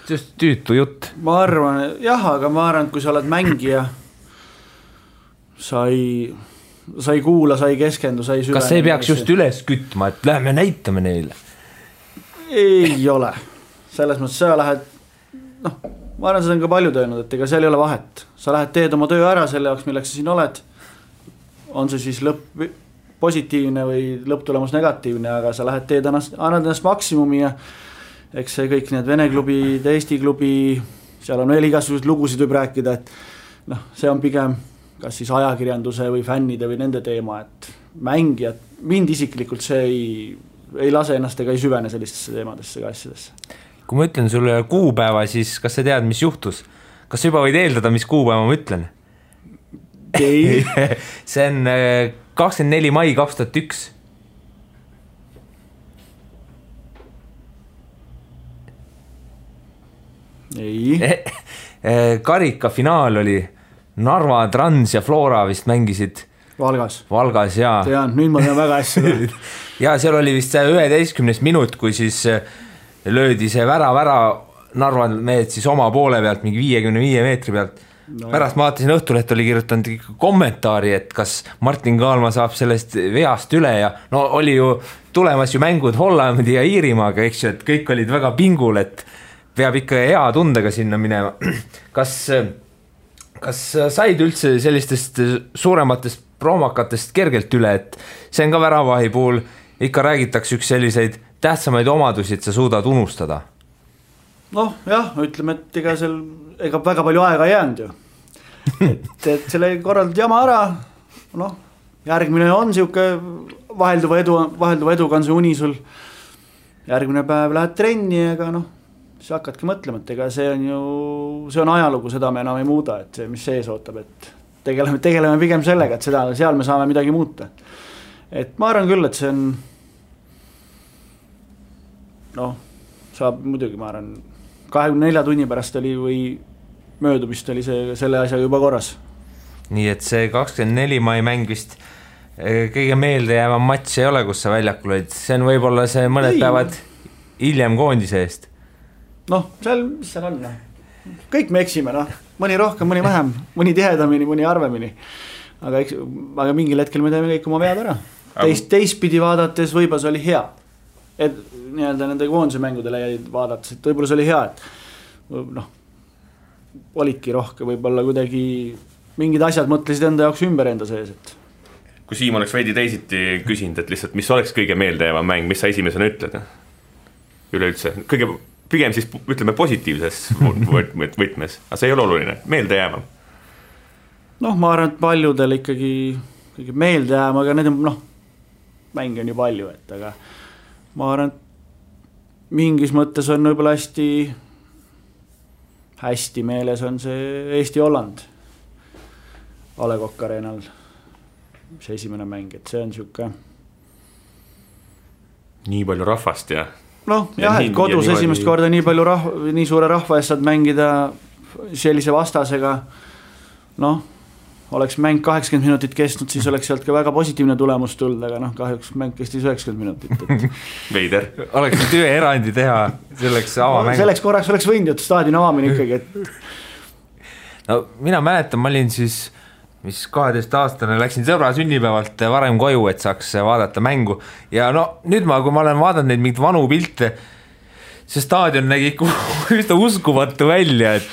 Speaker 3: just tüütu jutt.
Speaker 4: Ma arvan, jah, aga ma arvan, et kui sa oled mängija, sa ei kuula, sa ei keskendu, sa ei süvene.
Speaker 3: Kas see peaks just üles kütma, et lähme näitame neile?
Speaker 4: Ei ole. Selles mõttes sa lähed, noh, ma arvan, seda on ka palju töönud, et ega seal ei ole vahet. Sa lähed teed oma töö ära selle jaoks, milleks sa siin oled. On see siis lõpp positiivne või lõpptulemus negatiivne, aga sa lähed teed, annad ennast maksimumi ja eks see kõik need Vene klubi, Eesti klubi, seal on veel igasugused lugusid võib rääkida, et noh, see on pigem kas siis ajakirjanduse või fännide või nende teema, et mängijad, mind isiklikult see ei lase ennast ega ei süvene sellistesse teemadesse ega asjadesse.
Speaker 3: Kui ma ütlen sulle kuupäeva, siis kas sa tead, mis juhtus? Kas sa juba võid eeldada, mis kuupäeva ma ütlen?
Speaker 4: Ei.
Speaker 3: See on 24. mai 2001.
Speaker 4: Ei.
Speaker 3: Karika finaal oli Narva, Trans ja Flora vist mängisid Valgas ja
Speaker 4: tean, nüüd ma tean väga hästi.
Speaker 3: ja seal oli vist 11. minut, kui siis löödi see vära Narva mehed siis oma poole pealt mingi 55 meetri pealt. Pärast ma vaatasin Õhtuleht oli kirjutanud kommentaari, et kas Martin Kaalma saab sellest veast üle ja no oli ju tulemas ju mängud Hollandi ja Iirimaaga, eks ju, et kõik olid väga pingul, et peab ikka hea tundega sinna minema. Kas said üldse sellistest suurematest proomakatest kergelt üle, et see on ka väravahi puhul, ikka räägitakse üks selliseid tähtsamaid omadusi, et sa suudad unustada?
Speaker 4: Noh, jah, ütleme, et ega väga palju aega ei jäänud ju. et selle korraldad jama ära, noh, järgmine on siuke vahelduva eduga on see uni sul, järgmine päev lähed trenni, ega noh, siis hakkadki mõtlema, et ega see on ajalugu, seda me enam ei muuda, et see, mis sees ootab, et tegeleme pigem sellega, et seal me saame midagi muuta. Et ma arvan küll, et see on noh, saab muidugi, ma arvan 24 tunni pärast oli või möödumist oli selle asja juba korras.
Speaker 3: Nii et see 24 mai mäng vist kõige meelde jäävam matš ei ole, kus sa väljakul olid, see on võib-olla see mõned päevad hiljem koondise eest. Noh, mis seal on? Kõik me eksime, noh. Mõni rohkem, mõni vähem, mõni tihedamini, mõni harvemini. Aga mingil hetkel me teeme kõik oma vead ära. Teistpidi vaadates võib-olla see oli hea. Et nii-öelda nende koondise mängudele jäid vaadates, et võib-olla see oli hea, et noh, olidki rohkem, võib-olla kuidagi mingid asjad mõtlesid enda jaoks ümber enda sees, et
Speaker 5: kui Siim oleks veidi teisiti küsinud, et lihtsalt mis oleks kõige meeldejäävam mäng, mis sa esimesena ütled? Üleüldse, pigem siis ütleme positiivses võtmes, aga see ei ole oluline, meeldejäävam.
Speaker 4: Noh, ma arvan, et paljudel ikkagi meeldejäävam, aga need on, noh, mänge on ju palju, et aga ma arvan, et mingis mõttes on võib-olla hästi meeles on see Eesti-Holland A. Le Coq Arenal, see esimene mäng, et see on siuke
Speaker 5: nii palju rahvast ja
Speaker 4: noh, jah, et kodus esimest korda nii palju nii suure rahva eest saad mängida sellise vastasega, noh, oleks mäng 80 minutit kestnud, siis oleks sealt ka väga positiivne tulemus tulnud, aga noh, kahjuks mäng kestis 90 minutit.
Speaker 5: Veider.
Speaker 3: Oleks nüüd ühe erandi teha selleks avamäng.
Speaker 4: Selleks korraks oleks võinud, et staadioni avamine ikkagi, et
Speaker 3: no mina mäletan, ma olin siis 12-aastane, läksin sõbra sünnipäevalt varem koju, et saaks vaadata mängu ja no nüüd kui ma olen vaadanud neid mingid vanu pilte, see staadion nägi üsna uskumatu välja, et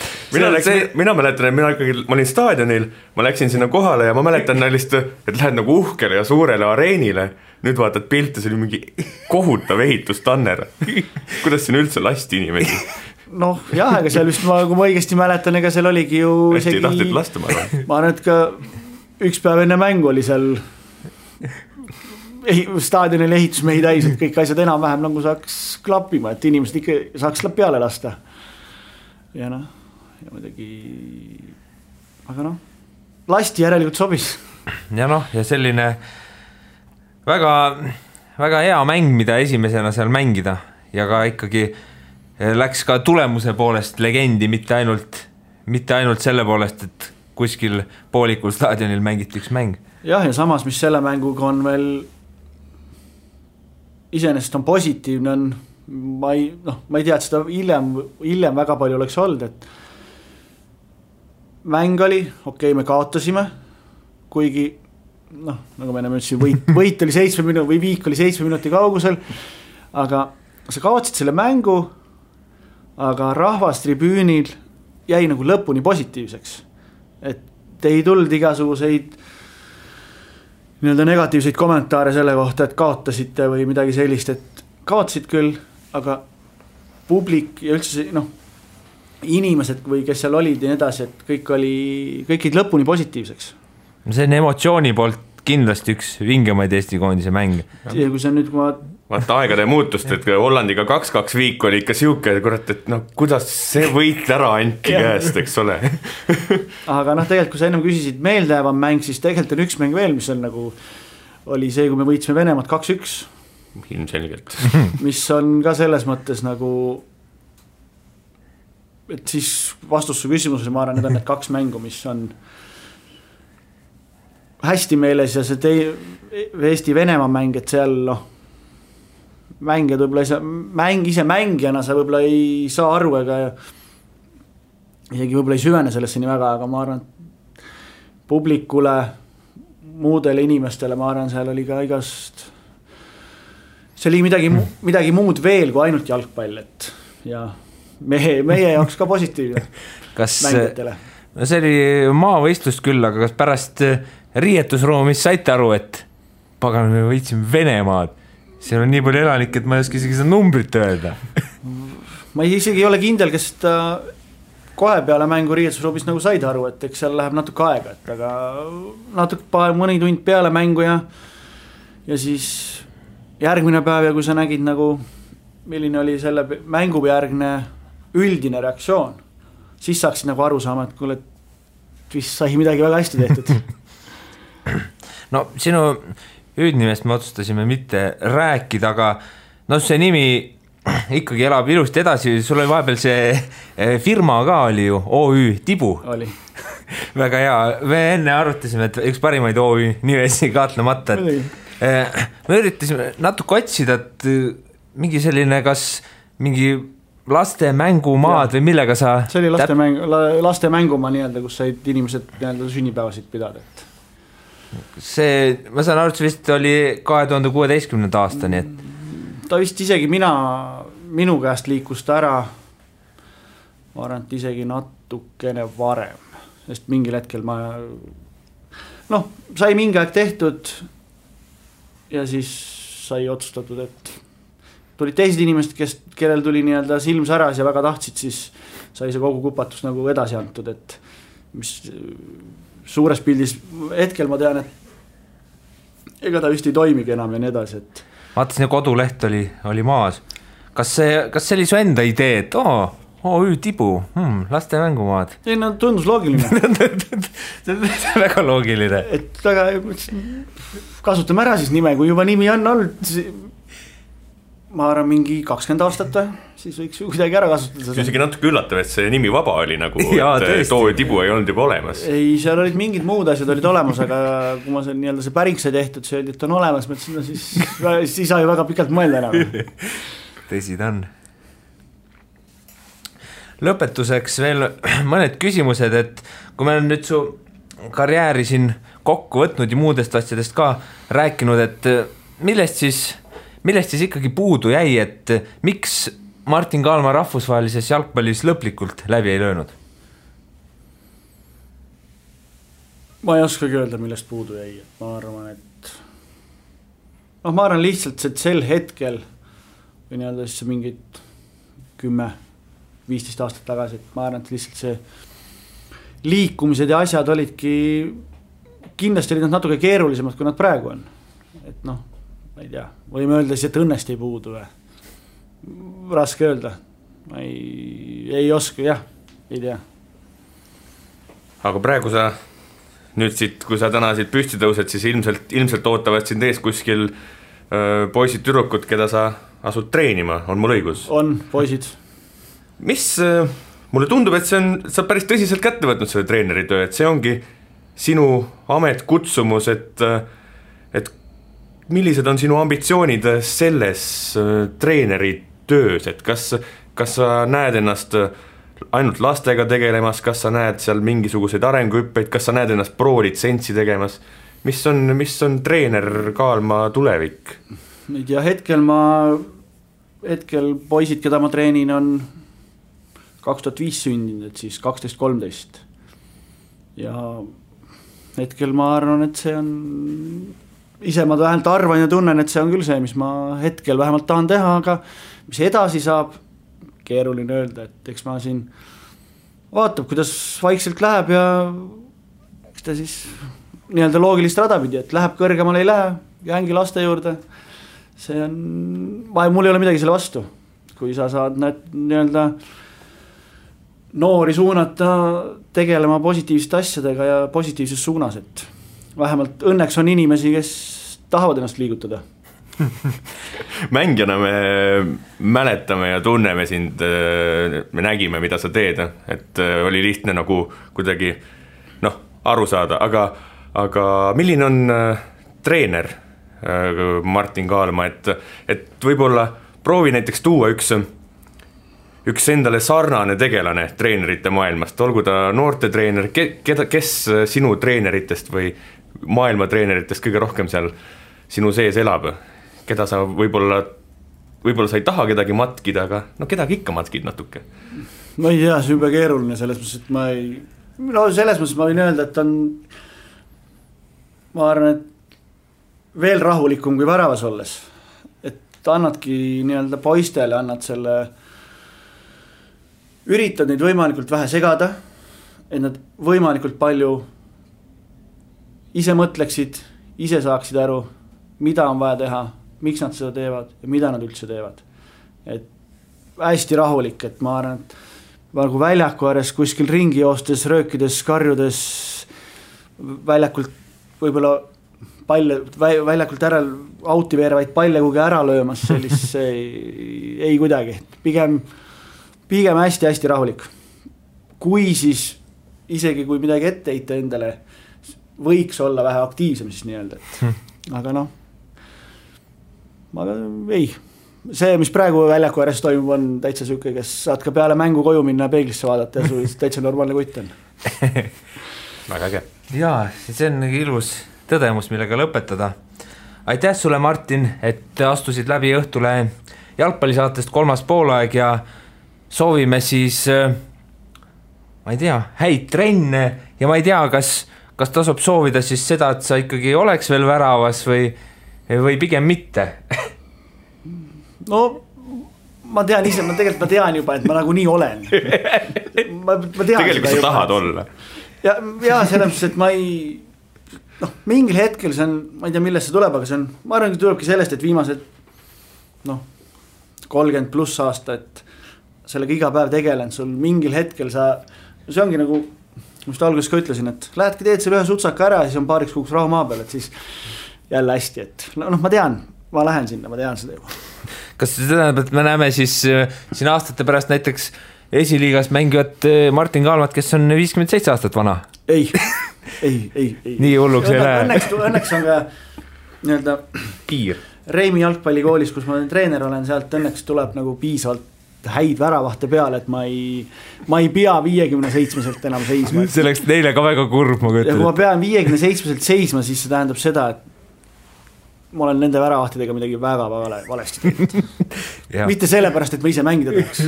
Speaker 5: mina mäletan, et ma olin staadionil, ma läksin sinna kohale ja ma mäletan lihtsalt, et lähed nagu uhkele ja suurele areenile, nüüd vaatad pilte, see oli mingi kohutav ehitustanner. Kuidas siin üldse lasti inimesi?
Speaker 4: Noh, jah, aga seal vist kui ma õigesti mäletan, ega seal oligi ju
Speaker 5: hästi tahtid lasta, ma
Speaker 4: arvan, et ka üks päev enne mängu oli seal staadionil ehitusmehi täis, et kõik asjad enam-vähem nagu saaks klappima, et inimesed ikka saaks peale lasta. Ja noh, ja muidugi, aga noh, lasti järelikult sobis.
Speaker 3: Ja noh, ja selline väga, väga hea mäng, mida esimesena seal mängida ja ka ikkagi läks ka tulemuse poolest legendi, mitte ainult selle poolest, et kuskil poolikul staadionil mängiti üks mäng.
Speaker 4: Jah, ja samas, mis selle mänguga on veel iseenesest on positiivne, on, ma ei tea, et seda hiljem väga palju oleks olnud, et mäng oli, okei, me kaotasime, kuigi nagu me enam ütlesin, võit oli 7 minuti või viik oli 7 minuti kaugusel, aga sa kaotsid selle mängu, aga rahvas tribüünil jäi nagu lõpuni positiivseks, et ei tulnud igasuguseid nii-öelda negatiivseid kommentaare selle kohta, et kaotasite või midagi sellist, et kaotasid küll, aga publik ja üldse inimesed või kes seal olid ja nii edasi, et kõik olid lõpuni positiivseks.
Speaker 3: See on emotsiooni poolt kindlasti üks vingemaid Eesti koondise mänge.
Speaker 4: Ja kui see nüüd, kui
Speaker 5: vaata aegade muutust, et Hollandiga 2-2 viik oli ikka siuke, kurat, et kuidas see võit ära anti käest, eks ole.
Speaker 4: Aga tegelikult, kui sa ennem küsisid meeldejäävam mäng, siis tegelikult on üks mäng veel, mis on nagu, oli see, kui me võitsime Venemaad 2-1.
Speaker 5: Ilmselgelt.
Speaker 4: Mis on ka selles mõttes nagu, et siis vastus su küsimusele, ma arvan, need on need 2 mängu, mis on hästi meeles ja see Eesti-Venemaa mäng, et seal mängijad võib-olla ise mängijana sa võib-olla ei saa aru ega isegi võib-olla ei süvene sellesse nii väga, aga ma arvan, publikule, muudele inimestele, ma arvan, seal oli ka igast, see oli midagi muud veel kui ainult jalgpall, et ja meie jaoks ka positiivne mängijatele.
Speaker 3: See oli maavõistlust küll, aga kas pärast riietusruumis saite aru, et pagan, me võitsime Venemaad. Seal on nii palju elanik, et ma ei oska isegi seda numbrit öelda.
Speaker 4: Ma isegi ei ole kindel, kes kohe peale mängu riietusruumis nagu said aru, et eks seal läheb natuke aega, et aga natuke mõni tund peale mängu ja siis järgmine päev ja kui sa nägid nagu, milline oli selle mängu järgne üldine reaktsioon, siis saaksid nagu aru saama, et kuule, vist sai midagi väga hästi tehtud.
Speaker 3: No sinu hüüdnimest me otsustasime mitte rääkida, aga see nimi ikkagi elab ilusti edasi, sul oli vahepeal see firma ka oli ju, OÜ Tibu.
Speaker 4: Oli.
Speaker 3: Väga hea, me enne arutasime, et üks parimaid OÜ nimesi kahtlemata, et me üritasime natuke otsida, et mingi selline, kas mingi laste mängumaad või millega sa...
Speaker 4: See oli laste mängumaa nii-öelda, kus said inimesed nii-öelda sünnipäevasid pidada, et
Speaker 3: see, ma saan aru, et see vist oli 2016. aastani, et
Speaker 4: ta vist isegi minu käest liikus ta ära, ma arvan, et isegi natukene varem, sest mingil hetkel sai mingi aeg tehtud ja siis sai otsustatud, et tulid teised inimesed, kellel tuli nii-öelda silm säras ja väga tahtsid, siis sai see kogu kupatus nagu edasi antud, et mis suures pildis hetkel ma tean, et ega ta vist ei toimigi enam ja nii edasi, et
Speaker 3: vaatasin, ja koduleht oli maas. Kas see oli su enda idee, et OÜ Tibu, laste mängumaad?
Speaker 4: Ei, tundus loogiline.
Speaker 3: See on väga loogiline.
Speaker 4: Et väga, kasutame ära siis nime, kui juba nimi on olnud, ma arvan mingi 20 aastat või, siis võiks ju kuidagi ära kasutada.
Speaker 5: See on isegi natuke üllatav, et see nimi vaba oli nagu, et OÜ Tibu ei olnud juba olemas.
Speaker 4: Ei, seal olid mingid muud asjad olid olemas, aga kui ma nii-öelda see päring sai tehtud, see öeldi, et on olemas, siis ei saa ju väga pikalt mõelda enam.
Speaker 3: Tõsi ta on. Lõpetuseks veel mõned küsimused, et kui me olen nüüd su karjääri siin kokku võtnud ja muudest asjadest ka rääkinud, et millest siis ikkagi puudu jäi, et miks Martin Kaalma rahvusvahelises jalgpallis lõplikult läbi ei löönud?
Speaker 4: Ma ei oskagi öelda, millest puudu jäi, et ma arvan, et ma arvan lihtsalt, et sel hetkel või nii-öelda siis mingid 10-15 aastat tagasi, et ma arvan, et lihtsalt see liikumised ja asjad olidki, kindlasti olid nad natuke keerulisemad, kui nad praegu on. Et ma ei tea, võime öelda siis, et õnnest ei puudu või? Raske öelda. Ma ei oska, jah, ei tea.
Speaker 5: Aga praegu sa nüüd siit, kui sa täna siit püsti tõused, siis ilmselt ootavad sind ees kuskil poisid tüdrukud, keda sa asud treenima, on mul õigus? On,
Speaker 4: poisid.
Speaker 5: Mis, mulle tundub, et sa päris tõsiselt kätte võtnud selle treeneritöö, et see ongi sinu amet, kutsumus, et millised on sinu ambitsioonid selles treeneritöös, et kas sa näed ennast ainult lastega tegelemas, kas sa näed seal mingisuguseid arenguhüppeid, kas sa näed ennast pro-litsentsi tegemas, mis on treener Kaalma tulevik?
Speaker 4: Ei tea, hetkel poisid, keda ma treenin, on 2005 sündinud, et siis 12-13 ja hetkel ma arvan, et see on ise ma vähemalt arvan ja tunnen, et see on küll see, mis ma hetkel vähemalt tahan teha, aga mis edasi saab, keeruline öelda, et eks ma siin vaatab, kuidas vaikselt läheb ja eks ta siis nii-öelda loogilist rada pidi, et läheb kõrgemale, ei lähe, jäängi laste juurde, see on, mul ei ole midagi selle vastu, kui sa saad nii-öelda noori suunata tegelema positiivsete asjadega ja positiivses suunas, et vähemalt õnneks on inimesi, kes tahavad ennast liigutada.
Speaker 5: Mängijana me mäletame ja tunneme sind, me nägime, mida sa teed, et oli lihtne nagu kuidagi aru saada, aga milline on treener Martin Kaalma, et võib-olla proovi näiteks tuua üks endale sarnane tegelane treenerite maailmast, olgu ta noortetreener, kes sinu treeneritest või maailma treeneritest kõige rohkem seal sinu sees elab, keda sa võib-olla sa ei taha kedagi matkida, aga kedagi ikka matkid natuke.
Speaker 4: Ma ei tea, see on juba keeruline selles mõttes, et selles mõttes ma võin öelda, et on, ma arvan, et veel rahulikum kui väravas olles, et annadki nii-öelda poistele, annad selle, üritad neid võimalikult vähe segada, et nad võimalikult palju ise mõtleksid, ise saaksid aru, mida on vaja teha, miks nad seda teevad ja mida nad üldse teevad. Et hästi rahulik, et ma arvan, et nagu väljaku ääres kuskil ringi joostes, röökides, karjudes, väljakult võib-olla väljakult ära auti veerevaid palle kugi ära löömas, sellist ei kuidagi. Pigem hästi-hästi rahulik. Kui siis, isegi kui midagi ette heita endale, võiks olla vähe aktiivsem siis nii-öelda, aga ei. See, mis praegu väljaku ääres toimub, on täitsa süke, kes saad ka peale mängu koju minna ja peeglisse vaadata ja sul täitsa normaalne kutt on.
Speaker 5: Väga äge.
Speaker 3: Jaa, see on ilus tõdemus, millega lõpetada. Aitäh sulle, Martin, et astusid läbi Õhtule jalgpallisaatest 3. poolaeg ja soovime siis, ma ei tea, häid trenne ja ma ei tea, kas tasub soovida siis seda, et sa ikkagi oleks veel väravas või pigem mitte?
Speaker 4: No, ma tean ise, ma tean juba, et ma nagu nii olen. Ma tean
Speaker 5: tegelikult sa tahad olla.
Speaker 4: Ja selles, et ma ei, mingil hetkel see on, ma ei tea, millest see tuleb, aga see on, ma arvan, et tulebki sellest, et viimased 30 pluss aasta, et sellega iga päev tegelen, sul mingil hetkel see ongi nagu, mis alguses ka ütlesin, et lähedki teed selle ühe sutsaka ära ja siis on paariks kuuks rahu maa peal, et siis jälle hästi, et ma tean, ma lähen sinna, ma tean seda juba.
Speaker 3: Kas see tähendab, et me näeme siis siin aastate pärast näiteks esiliigas mängivat Martin Kaalmat, kes on 57 aastat vana? Ei. Nii hulluks ei lähe.
Speaker 4: Õnneks on ka nii-öelda
Speaker 3: piir.
Speaker 4: Reimi jalgpallikoolis, kus ma treener olen, sealt õnneks tuleb nagu piisavalt häid väravahte peale, et ma ei pea 57-selt enam seisma.
Speaker 3: See oleks neile ka väga kurb, ma
Speaker 4: ja kui ma pean 57-selt seisma, siis see tähendab seda, et ma olen nende väravahtidega midagi väga valesti teinud. Mitte sellepärast, et ma ise mängida tahaks.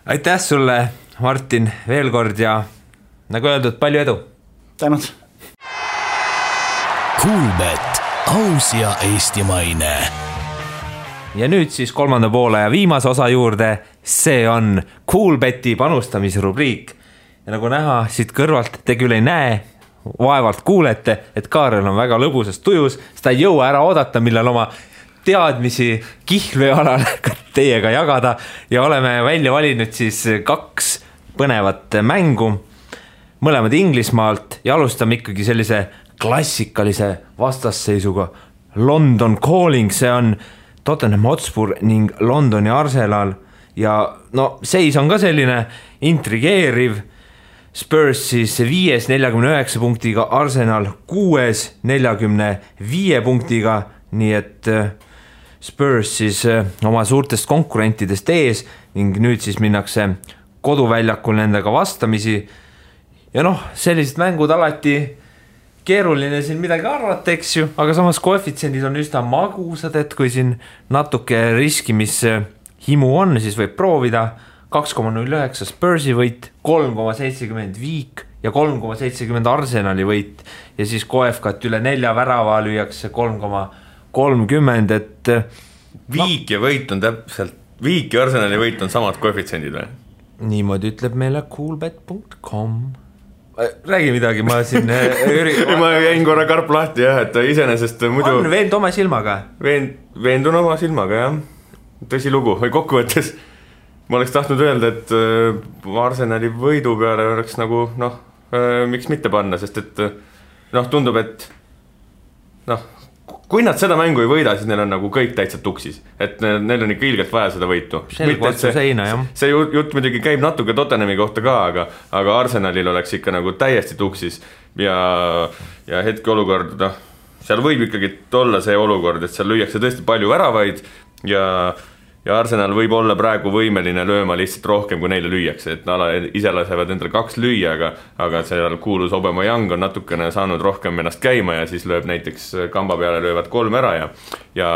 Speaker 3: Aitäh sulle, Martin, veel kord ja nagu öeldud, palju edu.
Speaker 4: Tänud.
Speaker 2: Kuulbet, aus ja eestimaine.
Speaker 3: Ja nüüd siis kolmanda poole ja viimase osa juurde, see on Kuulbeti panustamisrubriik. Ja nagu näha siit kõrvalt, te küll ei näe, vaevalt kuulete, et Kaarel on väga lõbusas tujus, seda ei jõua ära oodata, millal oma teadmisi Kihlvee alal teiega jagada ja oleme välja valinud siis 2 põnevat mängu, mõlemad Inglismaalt ja alustame ikkagi sellise klassikalise vastasseisuga London Calling, see on Tottenham Hotspur ning Londoni Arsenal ja no seis on ka selline intrigeeriv, Spurs siis 5. 49 punktiga, Arsenal 6. 45 punktiga, nii et Spurs siis oma suurtest konkurentidest ees ning nüüd siis minnakse koduväljakul nendega vastamisi ja noh, sellised mängud alati keeruline siin midagi arvata, eks ju, aga samas koefitsiendid on üsna magusad, et kui siin natuke riskimishimu on, siis võib proovida 2,09 Spursi võit, 3,70 Viik ja 3,70 Arsenali võit ja siis koefkat üle 4 värava lüüakse 3,30, et
Speaker 5: Viik ja võit on täpselt, Viik ja Arsenali võit on samad koefitsiendid või?
Speaker 3: Niimoodi ütleb meile coolbet.com. Räägi midagi, ma siin
Speaker 5: ma jäin korra karp lahti jah, et iseenesest muidu
Speaker 3: on veend oma silmaga.
Speaker 5: Veendun oma silmaga jah, tõsi lugu või kokkuvõttes ma oleks tahtnud öelda, et Arsenali võidu peale oleks nagu noh, miks mitte panna, sest et noh, tundub, et noh, kui nad seda mängu ei võida, siis neil on nagu kõik täitsa tuksis, et neil on ikka ilgelt vaja seda võitu. See jutt muidugi käib natuke Tottenhami kohta ka, aga Arsenalil oleks ikka nagu täiesti tuksis ja hetkeolukord, noh, seal võib ikkagi olla see olukord, et seal lüüakse tõesti palju väravaid ja Arsenal võib olla praegu võimeline lööma lihtsalt rohkem, kui neile lüüakse, et ise lasevad endale 2 lüüa, aga seal kuulus Aubameyang on natukene saanud rohkem ennast käima ja siis lööb näiteks kamba peale, löövad 3 ära ja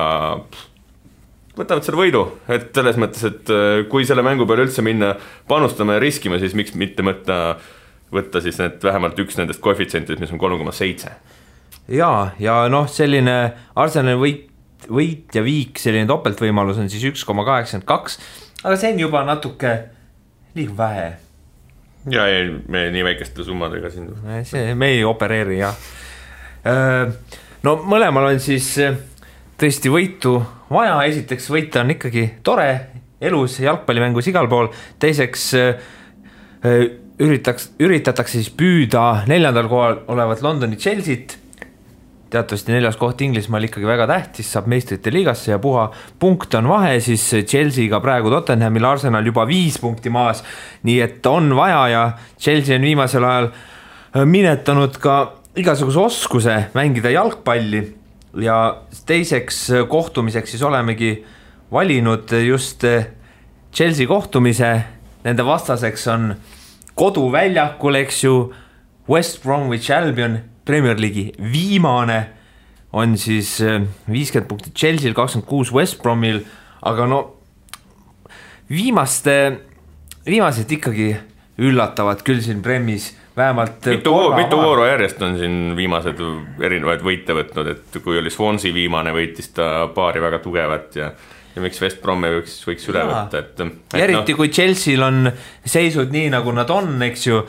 Speaker 5: võtavad selle võidu, et selles mõttes, et kui selle mängu peale üldse minna panustama ja riskima, siis miks mitte võtta siis need vähemalt üks nendest koefitsientidest, mis on 3,7.
Speaker 3: Ja noh, selline Arsenali võit ja Viik, selline topeltvõimalus on siis 1,82, aga see on juba natuke liiga vähe.
Speaker 5: Ja ei, me nii väikeste summadega siin.
Speaker 3: Me ei opereeri, jah. No mõlemal on siis tõesti võitu vaja, esiteks võita on ikkagi tore, elus jalgpallimängus igal pool, teiseks üritatakse siis püüda 4. kohal olevat Londoni Chelsea't, teatavasti 4. koht Inglismaal ikkagi väga tähtis, saab meistrite liigasse ja puha punkt on vahe, siis Chelsea'ga praegu Tottenhamil, Arsenal juba 5 punkti maas, nii et on vaja ja Chelsea on viimasel ajal minetanud ka igasuguse oskuse mängida jalgpalli ja teiseks kohtumiseks siis olemegi valinud just Chelsea kohtumise, nende vastaseks on koduväljakul, eks ju, West Bromwich Albion, Premier League'i viimane on siis 50 punkti Chelsea'l, 26 West Bromil, aga no viimased ikkagi üllatavad küll siin Premis, vähemalt
Speaker 5: mitu vooru järjest on siin viimased erinevaid võite võtnud, et kui oli Swansea viimane, võitis ta paari väga tugevat ja miks West Bromi võiks üle võtta, et
Speaker 3: eriti kui Chelsea'l on seisud nii, nagu nad on, eks ju,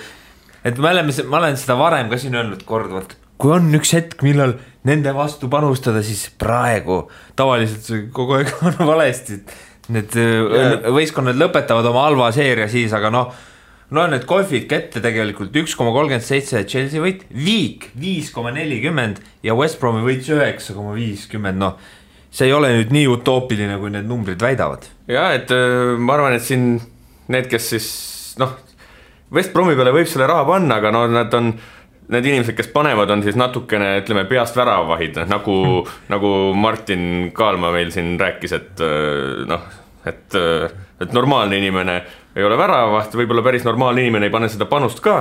Speaker 3: et ma olen seda varem ka siin öelnud korduvalt, kui on üks hetk, millal nende vastu panustada, siis praegu tavaliselt kogu aeg on valesti. Need võistkonnad lõpetavad oma halva seeria siis, aga no need koefid kätte tegelikult 1,37 Chelsea võit, Viik 5,40 ja West Bromi võit 9,50, no see ei ole nüüd nii utoopiline, kui need numbrid väidavad.
Speaker 5: Ja, et ma arvan, et siin need, kes siis West Bromi peale võib selle raha panna, aga need inimesed, kes panevad, on siis natukene, ütleme, peast väravahid, nagu Martin Kaalma meil siin rääkis, et normaalne inimene ei ole väravaht, võib-olla päris normaalne inimene ei pane seda panust ka,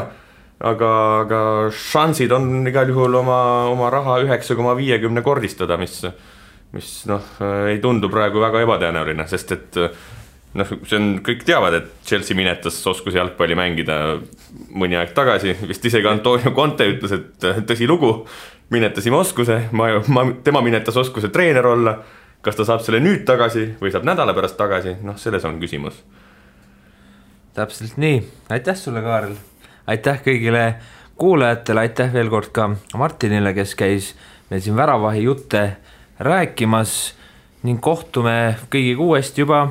Speaker 5: aga šansid on igal juhul oma raha 9,50 kordistada, mis ei tundu praegu väga ebatõenäoline, sest et see on, kõik teavad, et Chelsea minetas oskuse jalgpalli mängida mõni aeg tagasi, vist isegi Antonio Conte ütles, et tõsi lugu, minetasime oskuse, tema minetas oskuse treener olla, kas ta saab selle nüüd tagasi või saab nädala pärast tagasi, selles on küsimus.
Speaker 3: Täpselt nii, aitäh sulle, Kaarel, aitäh kõigile kuulajatele, aitäh veel kord ka Martinile, kes käis meil siin Väravahi jutte rääkimas ning kohtume kõigiga uuesti juba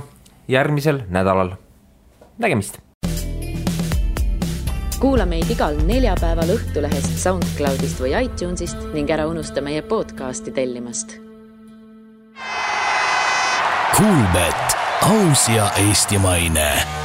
Speaker 3: järgmisel nädalal. Nägemist!
Speaker 1: Kuula meid igal neljapäeval Õhtulehest, SoundCloudist või iTunesist ning ära unusta meie podcasti tellimast.
Speaker 2: Kuulbet, aus ja eestimaine.